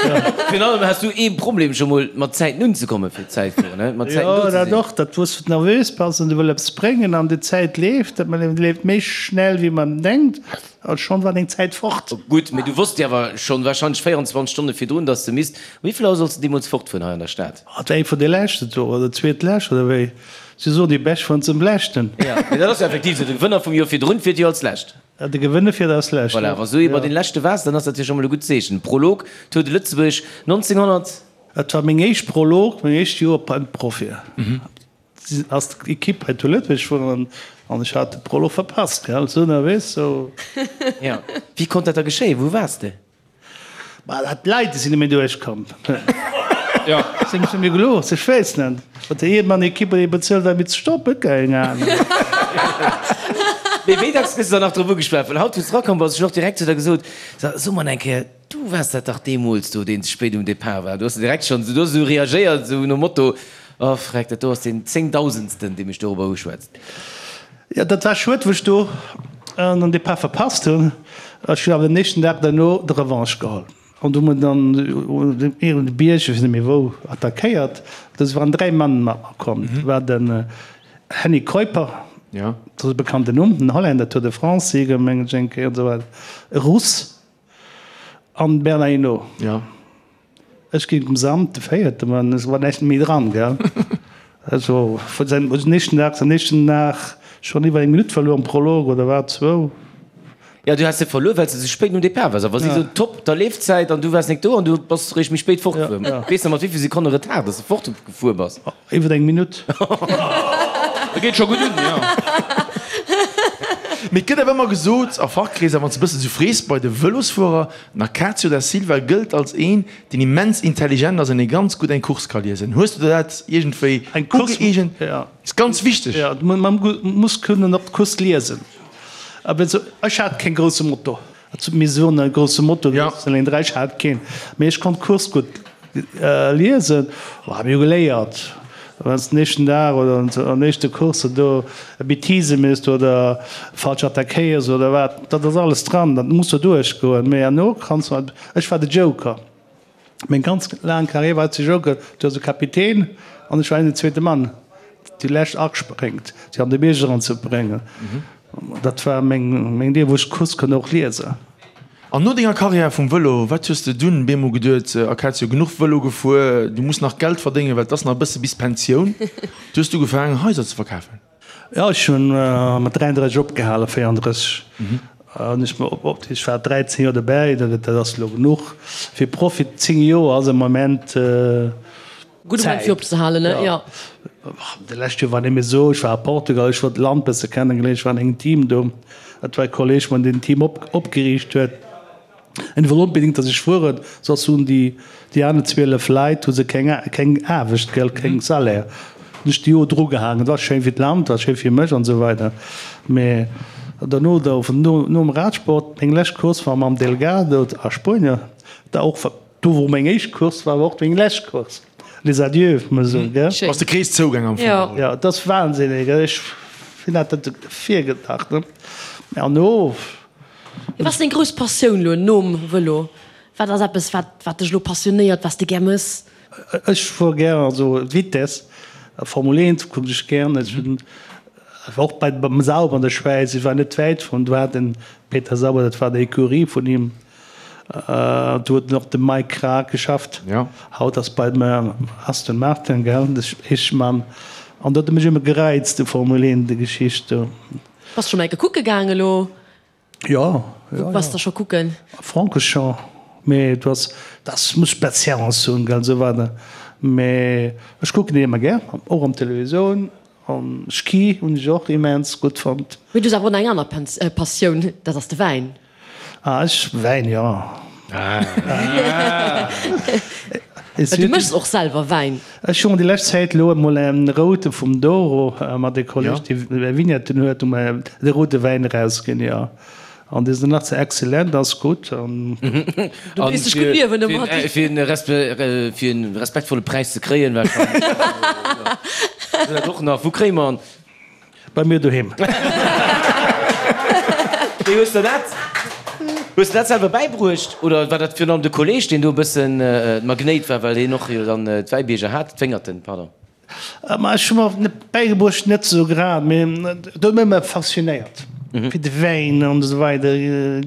Virun allem has du ee Problem scho mol mat Zäiten unzekommen fir d'Zäitfueren, he? Mat Zäiten Jo, do ze dat sinn. och, dat wou s du nervös bass an du wëll eppes bréngen an déi Zäit leeft, dat man leeft méi schnell wéi man denkt a schonn war deng Zäit fort. Gutt, mee du wosst jo awer schonn wahrscheinlech 24 Stonne virdrun, dass de misst. Um wéi vill Auer solls de deemools fortfueren hei an der Stad? Dat war ee vun de leschten do, oder zweetlescht oder wéi. Si soen, déi Bescht fueren zum leschten. Jo, mee dat ass jo effektiv esou, de Gewënner vum Joer virdrun fiert jo als lescht. De Gewënne fiert als Lescht. Voilà, wa s du ee bei den Leschte waars, dann ass dat jo scho mol e gutt Zeechen. Prolog, Tour de Lëtzebuerg 1900. Et war meng éischt Prolog, meng éischt Joer beim Profi. Ass d'Ekipp hei zu Lëtzebuerg gefuer an ech hat de Prolog verpasst, gell, sou nervös, sou. Jo, wéi konnt dat da geschéien? Wou waars de? Ma dat d'Leit, déi sinn net méi duerchkomm. Jo. Si hunn mir gelooss, ech weess net. Huet der iergendwann Ekipp huet ee bezuelt, fir ze stoppen? Keng Ahnung. Mee wéi dacks gëss de dann nach drop ugeschwat? Well haut, wou s de erakomm bass, ech hunn och direkt zu der gesot, So, so mol eng Kéier, du waars dat dach deemools do, deen ze spéit um Depart war. Do hues de direkt schonn, du hues esou reagéiert, esou nom Motto, Oh freck, dat do ass deen zéngdausendsten, dee mech dorobber uschwätzt. Jo, dat war schued, wou ech do den Depart verpasst hunn. Ech hunn awer den nächsten Dag derno de Revanche geholl an du mer dann iergend e Bierg, ech weess net méi wou, attackéiert. Do waren 3 Mann mat mer komm. Dat war den Henny Kuiper, dat ass e bekannten Numm, den Holländer, Tour de France-Sieger mengen ech eng Kéier an esou weider, e Russ an Bernard Hinault. Ech ginn dem Sam de véierte, ma es war näischt méi dran, gell. Also vun säin den éischten Dag, den éischten Dag schonn iwwer eng Minutt verluer am Prolog oder wat, zwou. Jo, du has se verluer, well s de sou spéit nom Depart waars. A wa si sou top der Leefzäit an du waars nek do an du bass réischt méi spéit fortgefuer. Weess nach mat wéi vill Sekonne Retard dass de fortgefuer bass? Iwwer eng Minutt. Dat geet scho gutt un, jo. Mee et gëtt awer ëmmer gesot a Fachkreeser, wann s de e bëssen sou frees bei de Vëlosfuerer, Den Acacio da Silva gëllt als een, deen immens intelligent ass an dee ganz gutt eng Course ka liesen. Hues du der dat iergendwéi ugëeegent? Ass ganz wichteg. Jo, man muss kënnen och d'Course liesen. Ech hat keen grousse Motor. Mir soen e grousse Motor, ech hat keen, mee ech konnt d'Course gutt liesen. Mir hu geléiert. Wann s den éischten Dag oder an éischte Course do e Bêtise méchs oder falsch attackéiers oder wat, dat ass alles dran, dat muss do duerchgoen. Mee herno kanns du, ech war de Joker, meng ganz laang Carrière war ech de Joker, du ass e Kapitän an ech war den zweete Mann, déi lescht aspréngt, fir an de Bierg eranzebréngen. Dat war meng Dier, wou ech d'Course konnt och liesen. An no denger Karriär vum Vëlo, wat hues de dunn bemol geduet, Acacio, genuch Vëlo gefuer, du muss nach Geld verdéngen, well et ass nach e bësse bis Pensioun. Du hues du ugefaangen Haiser ze verkafen? Jo, ech hunn mat 33 opgehalen, 34 hunn ech mer op, ech war 13 Joer dobäi, dat ass elo genuch fir Profi. 10 Joer ass am Moment Gudde Moment fir opzehalen, ne? Jo. De lescht Joer war net méi esou, ech war a Portugal, ech wollt d'Land bësse kennegeléieren, ech war an engem Team do, dat war e Kolleg, mat deen Team opgeriicht huet. En wollt onbedéngt, datt ech fueren, soss hunn déi déi aner 12 Leit hu se keng keng Aarbecht, gell, keng Salaire. Hunn ech déi Joer drugehaangen. Et war schéin fir d'Land, war schéin fir mech an esou weider. Mä derno, da no nom Radsport, meng lescht Course war mam Delgado a Spuenien, da och do wou meng éischt Course war, war och meng lescht Course. Les adieux, muss man soen, gell. Ass de Krees zougaang am Fong. Jo, et ass wahnsinnig, ech hunn dat net virgedacht, ne. Mä an no. Wat ass deng grouss Passioun lo nom Vëlo? Wat ass eppes, wat, wat dech lo passionéiert, wat s de gär mëss? Ech fuer gär, also Vitess, Formel 1 kucken ech gär. Ech hunn war och bei beim Sauber an der Schwäiz, ech war net wäit vun, do hat den Peter Sauber, dat war d'Ecurie vun him, do huet en och de Mike Krack geschafft, haut ass bei dem Aston Martin, gell, de Eeschmann. An dat huet mech ëmmer gereizt, de Formel 1, déi Geschicht do. Bass scho mol enke kucke gaang elo? Jo, jo, jo. Wou bass de scho kucken? Francorchamps, mee du ass, das muss Patience hunn, gell, esou weider. Mee ech kucken déi ëmmer gär, och am Televisioun. An Ski hunn ech och immens gutt fonnt. Mee du hues awer och nach eng aner Passioun, dat ass de Wäin. Ah, ech, Wäin, jo. Well du méchs och selwer Wäin. Ech hunn déi lescht Zäit elo emol en route vum Douro mat e Kolleg, dee Vignetten huet, hu mer de route Wäin erausginn, jo. An dee sinn nach ze excellent, ass gutt. An Du weess dech gutt liewen domat. Fir en respektvolle Präis ze kréien, warscheinlech. Dat och nach. Wou kréie mer en? Bei mir doheem. Wéi hues de dat? Hues de dat selwer bäibruecht oder war dat virun allem de Kolleg, deen do e bëssen d'Magnéit war, well hien och jo dann d'Wäibierger hat, d'Wéngerten, pardon? Ma ech hu mer net bäigebruecht, net esou grad, mee dat huet mech ëmmer faszinéiert, fir de Wäin an esou weider,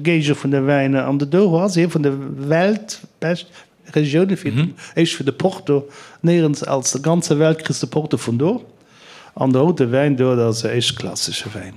Géige vun de Wäiner. An de Douro ass ee vun de weltbescht Regioune fir den, éischt fir de Porto, néierens als der ganzer Welt kriss de Porto vun do. An de roude Wäin do, dat ass e éischtklassege Wäin.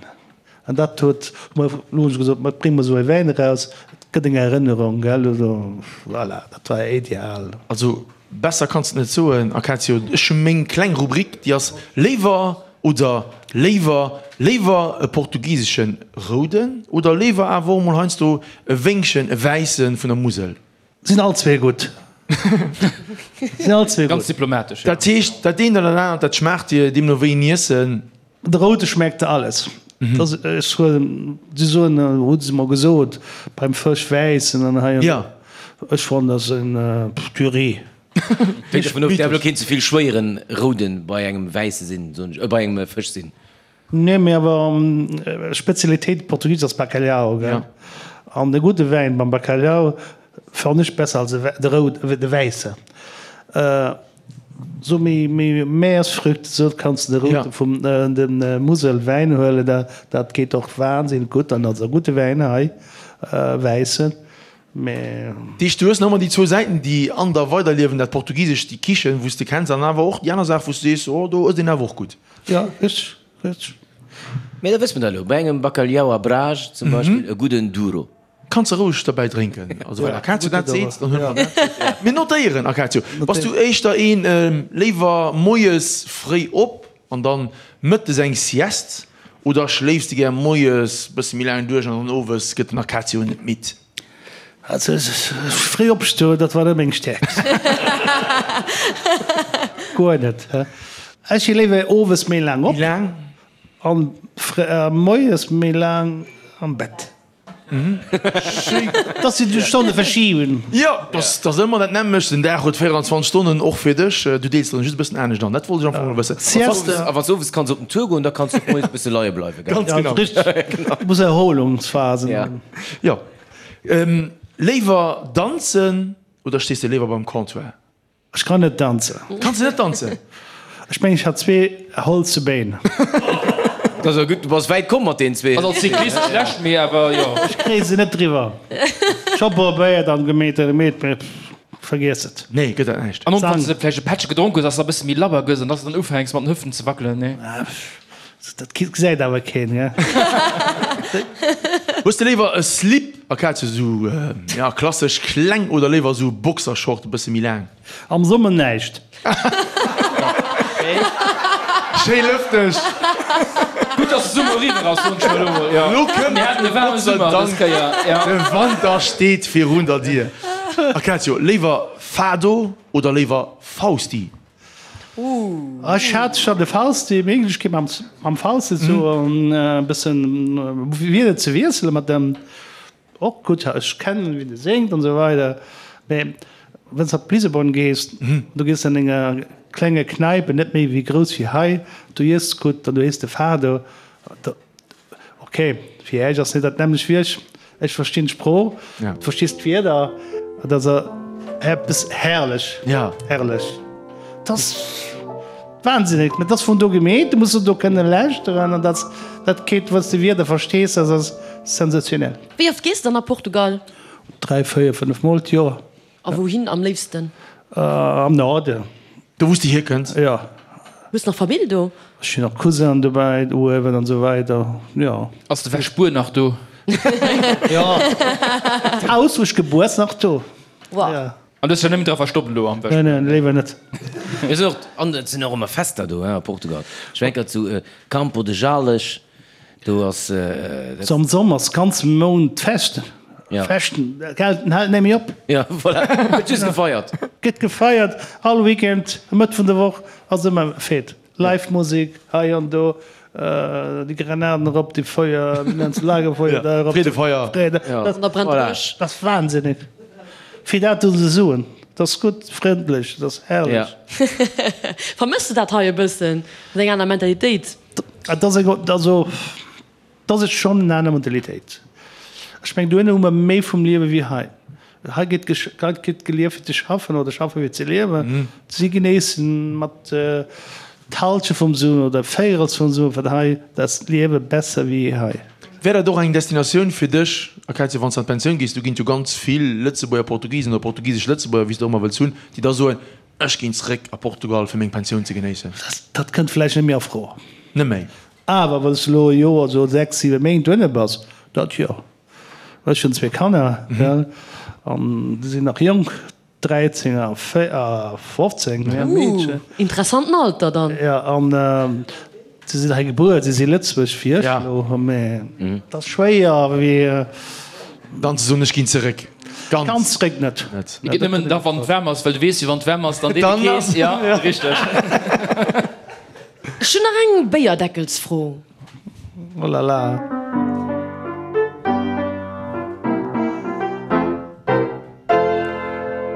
An dat huet, hu mer elo hunn ech gesot, ma brénge mer esou e Wäin eraus, et gëtt eng Erënnerung, gell, also voilà, dat war ideal. Also besser kanns de et net soen, Acacio. Ech hu meng kleng Rubrik, déi ass léiwer oder léiwer, léiwer e portugiseschen rouden oder léiwer awer och mol heiansdo e Wéngchen, e wäisse vun der Musel. Sinn all zwee gutt. Sinn all zwee gutt. Ganz diplomatesch, jo. Dat heescht, dat eent oder dat anert, dat schmaacht dir, deemno wéi en Iessen? De Roude schmeckt de alles. Dat ass, ech huelen, si soen, hu se mer gesot, beim Fësch wäissen an hei an do. Ech fannen, dat ass en Purée. Hänkt dervun of, däerf elo keen ze vill schwéieren Rouden bei engem wäisse sinn, soen ech, bei engem Fësch sinn. Nee, mee awer Spezialitéit Portugies ass Bacalhau, gell? An de gudde Wäin beim Bacalhau fannen ech besser als de roud, de wäisse. Sou méi méi Meeresfrüchte sou kanns de de route vum de Muselwäin huelen, dat geet och wahnsinnig gutt an ass e gudde Wäin hei, wäissen. Mee. Deeg, du hues nach ëmmer déi zwou Säiten, déi an der weiderliewen, dat Portugisescht, déi Kichen, wou s de kenns, an awer och déi aner Saach, wou s du sees, oh, do ësst een awer och gutt. Jo, richteg, richteg. Mee da wësse mer dat elo, bei engem Bacalhau à Brás zum Beispill e gudden Douro. Kanns de roueg derbäi drénken. Also wann Acacio dat seet, dann huele mer dat. Mir notéieren, Acacio. Bass du éischter een, léiwer moies fréi op an dann mëttes eng Sieste oder schléifs de gär moies bësse méi laang duerch an dann owes gëtt den Acacio net midd? Also fréi opstoen, dat war net meng Stäerkt. Guer net. Ech si léiwer owes méi laang op an moies méi laang am Bett. Dass si déi Stonne verschiben. Jo, dat ass ëmmer dat nämmlecht. Den Dag huet 24 Stonnen, och fir dech. Du deels der just e bëssen anescht an. Dat wollt ech am Fong elo wëssen. A wann s de owes kanns op den Tour goen, da kanns du och moies e bësse leie bleiwen, gell? Ganz genau. Richteg. Du muss Erholungsphasen hunn. Jo. Léiwer danzen oder stees de léiwer beim Comptoir? Ech kann net danzen. Kanns de net danzen? Ech mengen ech hat zwee holze Béin. Dat ass gutt, du bass wäit komm mat deenen zwee. Ass als Cyclist schlecht, mee awer jo. Ech kréie se net driwwer. Ech hu probéiert an gemeet an gemeet, mee vergiess et. Nee, gëtt dat näischt. An och wann s de vläicht e Pättche gedronk hues, dass de e bësse méi labber gëss an dass de dann ufänks mat den Hüften ze wackelen, nee? Dat gesäit awer keen, gell? Hues de léiwer e Slip, Acacia, sou ja klassesch kleng oder léiwer sou Boxershort e bësse méi laang? Am Summer näischt. Schéi lëfteg. Gutt dass de Summer eriwwer ass, soen ech mer elo mol. Elo kënnt Mir haten e waarme Gott sei Summer dës Dank Kéier, ja. de Wanter steet virun der Dier. Acacio, léiwer Fado oder léiwer Fausti? Ech hat scho de Fausti, Méiglechkeet mam Fausti sou e bëssen Wierder ze wiesselen mat dem, och gutt, ech kennen wéi de séngt an esou weider, mee wann s de op Lissabon gees, du gees an enger klenge Kneipe, net méi wéi grouss wéi hei, du iess gutt an du héiers de Fado, Ok, fir Äech ass net dat nämmlecht wéi ech. Ech verstinn d'Sprooch, du verstees d'Wierder. Et ass eppes herrlech, herrlech. Et ass wahnsinnig, mä et ass vun do gemeet, du muss se do kënne lauschteren an dat, dat geet, wann s de Wierder verstees, dat ass sensationell. Wéi oft gees de dann a Portugal? 3, 4, 5 Mol d'Joer. A wouhin am léifsten? Am Norden. Do wou s de hierkënns? Jo. Hues nach Famill do? Ech hunn nach Cousin'en dobäi, uewen an esou weider, jo. Ass de Wäschbuer nach do? Jo. D'Haus wou ech gebuer ass nach do. Wow. Jo. An du hues dech nëmmen dra verstoppt elo am Wäschbuer? Nee, nee, léiwer net. Mir sinn och, an et sinn och ëmmer Fester do, hein, a Portugal. Ech war eng Kéier zu Campo de Jales. Do ass dat. Am Sommer ass ganze Mount Fest. Ja. Fechten, gell, den hält net méi op. Ja, voilà. Gëtt just gefeiert. Gëtt gefeiert, all Weekend, Mëtt vun der Woch ass ëmmer Fête. Live Musek hei an do, déi Granaten erop, déi Feuer, wéi nennt se, Lagerfeuer da erop. Freedefeuer. Freede, Ja. An da brennt de Voilà. Bësch. Dat ass wahnsinnig. Fir dat do ze soen, dat ass gutt, frëndlech, dat ass herrlech. Ja. Vermëss de dat hei e bëssen? Dat ass eng aner Mentalitéit. Et ass eng, also et ass schonn en aner Mentalitéit. Ech mengen, dohinner hu mer méi vum Liewe wéi hei. Hei gëtt hei gëtt gelieft fir ze schaffen oder schaffe fir ze liewen. Si genéissen mat d'Halschent vum Suen oder Véirels vum Suen, wat hei, da ass d'Liewe besser wéi hei. Wär dat och eng Destinatioun fir dech, Acacia, wann s de an d'Pensioun gees? Do ginn et jo ganz vill Lëtzebuerger Portugisen oder portugisesch Lëtzebuerger, wéi s de och ëmmer wëlls hunn, déi da soen, Ech ginn zréck a Portugal fir meng Pensioun ze genéissen. Dat kënnt vläicht net méi a Fro. Net méi. Awer wann s de elo e Joer, sou 6, 7 Méint dohinne bass, dat jo. Ech hunn zwee Kanner, gell, an déi sinn nach jonk, 13 a 15, ja, Meedchen. Ooh, interessanten Alter dann. Jo, an si sinn hei gebuer, si si Lëtzebuerg wéi ech elo, mä et ass schwéier, wéi. Dann ze soen, ech ginn zeréck. Ganz. Ganz zeréck net. Net. Et geet nëmmen da wann et waarm ass, well du weess jo wann et waarm ass, dann deet et kees. Ja, richteg. Ech hunn nach eng Béierdeckelsfro. Oh la la.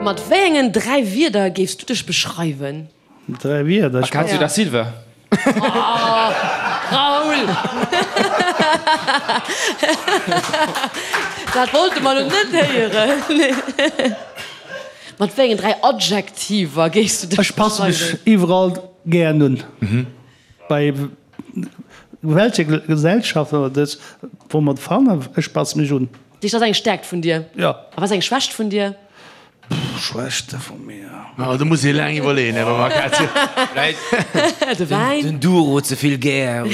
Mat wéi engen 3 Wierder géifs du dech beschreiwen? 3 Wierder? Acacio da Silva. Oh, Raoul! Dat wollte mer elo net héieren. Mat wéi engen 3 Adjektiver géifs du dech Ech passe mech beschreiwen? iwwerall gären un. Bei welcher Gesellschaft oder dës, wou mer fannen, ech passe mech un. Dat ass eng Stäerkt vun dir. Jo. A wat ass eng Schwächt vun dir? Schwächte vu mir? Oh, do muss ee laang iwwerleeën, Här Bavacazio. De Wäin. Den Duro ze vill gär.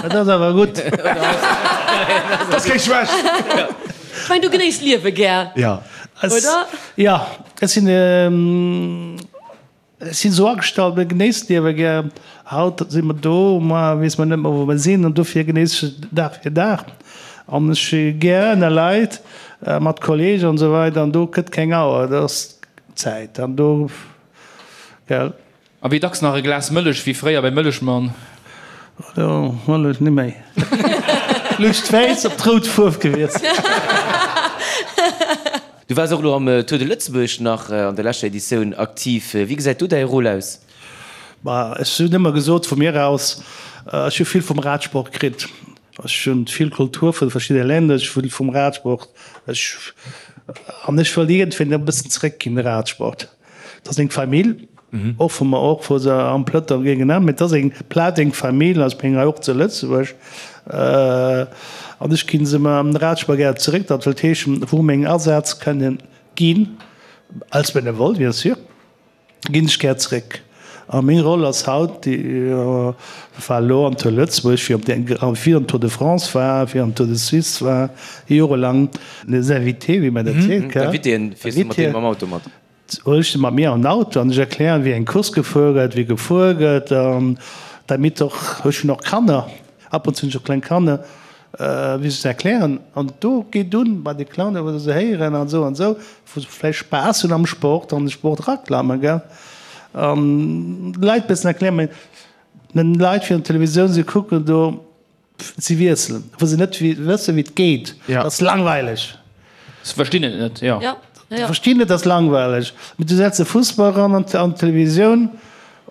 Dat ass awer gutt. Dat ass keng Schwächt. Ech mengen, du genéiss d'Liewe gär, Ja. oder? Jo, ech sinn. Ech sinn esou agestallt, mir genéissen d'Liewe gär. Haut si mer do, muer weess mer net méi, wou mer sinn. An dofir genéiss ech Dag fir Dag. An ech si gär ënner Leit, mat Kolleegen an esou weider. An do gëtt keng Auer, do ass Zäit. An do, gell. A wéi dacks nach e Glas Mëllech, wéi fréier beim Mëllechmann? Do Mëllech net méi. Luucht d'Wäiss op d'rout Fuerf gewiesselt. Du waars och elo am Tour de Lëtzebuerg nach an der leschter Editioun aktiv. Wéi gesäit do däi Rôle aus? Ma ech hunn ëmmer gesot, vu mir aus, ech hu vill vum Radsport kritt. Ech hunn vill Kultur vu verschiddene Länner, ech hu vum Radsport, ech, an ech wëll iergendwéi e bëssen zeréckginn, de Radsport. Et ass eng Famill, och vu mer, och vu se am Plëtter géingen an, mee et ass eng Plaz, eng Famill, also ech meng hei och zu Lëtzebuerg, an ech ginn se mer am Radsport gär zeréck. Dat wëllt heeschen, wou meng Asätz kënnen ginn, als Benevole bien sûr, ginn ech gär zeréck. A meng Roll ass haut, déi war elo am Tour Lëtzebuerg, wéi op der, wéi am Tour de France war, wéi am Tour de Suisse war, jorelang les invités, wéi mer dat seet, gell? D'Invitéen, fiers du mat deenen mam Auto mat? Huel ech se mat mir an den Auto an ech erklären, wéi eng Course gefuer gëtt, wéi gefuer gëtt, an damit och, ech hunn och Kanner, ab und zu hunn ech och kleng Kanner, wéi se erklären. An do geet un bei de Clownen, wou se héieren an esou an esou, wou se vläicht Spaass hunn am Sport, an de Sport eraklammen, gell, an de Leit e bëssen erklären. Mä den Leit virun der Televisioun, se kucken do, si wiesselen, wou se net wëssen, wéi et geet. Dat ass langweileg. Se verstinn et net, jo. Se verstinn et, ass langweileg. Mee du setz e Fussball eran an d'Televisioun,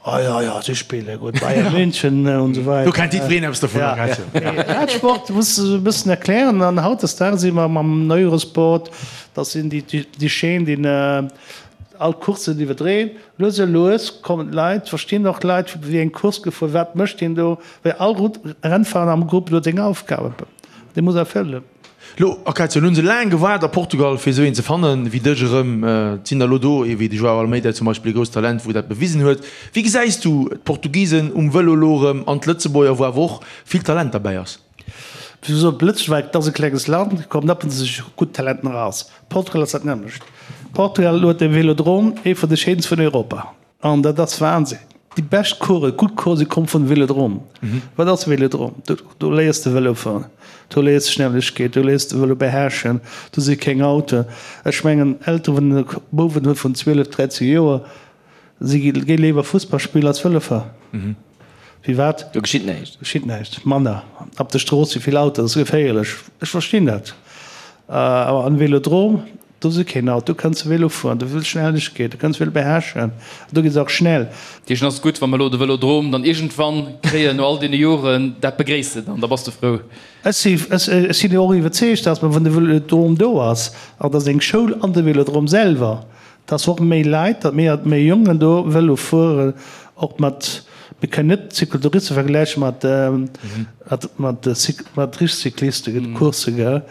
Oh jo, jo, si spille gutt, Bayern München und esou weider. Do kennt jiddwereen eppes dovun. Ja, Sport muss de e bëssen erklären. An hautdesdaags si mer mam Eurosport, dat sinn déi, déi Chaîne, déi all d'Courssen iwwerdréen. Lues a lues kommen d'Leit, verstinn och d'Leit, wéi eng Course gefuer, wat mécht deen do, well all Rennfahrer am Grupp huet seng Aufgabe, déi muss erfëllen. Lo, Acacio, lo hunn se laang gewaart a Portugal fir esou een ze fannen wéi dech erëm. Et sinn der lo do, ee wéi de Joao Almeida zum Beispill, e grousst Talent wou dat bewisen huet. Wéi gesäis du d'Portugisen um Vëlo lo erëm an d'Lëtzebuerger, wou awer och vill Talent derbäi ass? Wéi gesot, Lëtzebuerg, dat ass e klenges Land, kommen ab und zu gutt Talenten eraus. Portugal ass dat nämmlecht. Portugal huet e Velodrom, ee vun de schéinste vun Europa. An dat ass Wahnsinn. Déi bescht Coursen, gutt Coursen komme vun Velodrom. Wat ass Velodrom? Do, do léiers de Vëlo fueren, do léiers de Schnellegkeet, do léiers de Vëlo beherrschen, do si keng Autoen. Ech mengen, Elteren, wann e Bouwen huet vun 12, 13 Joer, si gi léiwer Fussball spillen als Vëlo fueren. Firwat? Do geschitt näischt. Geschitt näischt. Manner. Op der Strooss si vill Autoen, dat ass geféierlech. Ech verstinn dat. Awer am Velodrom, Do si keen Auto, do kënns de Vélo fueren, do wëll Schnellegkeet, do kënns Vélo beherrschen, do geet et och schnell. Deechen ass gutt, wa mer elo de Vëlodrom dann iergendwann kréien, no all deene Joren, dat begréisst de dann, da bass de frou. Ech si, ech sinn och iwwerzeegt, dass wann de Vëlodrom do ass, an et ass eng Schoul an de Vëlodrom selwer, dass och méi Leit, datt méi, méi Jongen do Vëlo fueren, och mat, mir kënnen net Cyclotouriste vergläiche mat, mat, mat, mat richteg Cyclisten, Coursse, gell.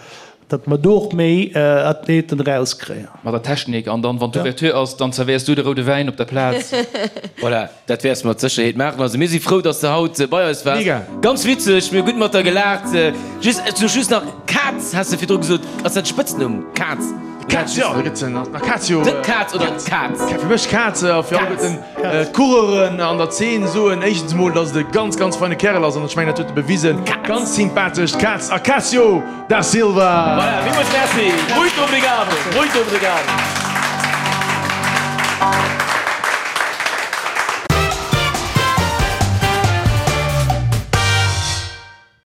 Datt mer do och méi Athleten erauskréien. Mat der Technik an dann, wann d'Ouverture ass, dann zerwéiers du de roude Wäin op der Plaz. Voilà, dat wäers de mat Sécherheet maachen. Also mir si frou, dass de haut bei eis waars. Mega! Ganz witzeg, mir hu gutt mat der gelaacht. Just, ech soe just nach, Kaz has de virdru gesot. Ass dat de Spëtznumm, Kaz? Kaz, jo, da gëtt se nach Acacio. De Kaz oder d'Kaz? Fir mech Kaz a fir alleguerten d'Coureuren an der Zeen soen éischtens emol, dass et e ganz, ganz feine Kärel ass an ech mengen, dat huet e bewisen. Ganz sympathesch, d'Kaz Acacio da Silva. Voilà, villmools Merci. Muito obrigado, muito obrigado.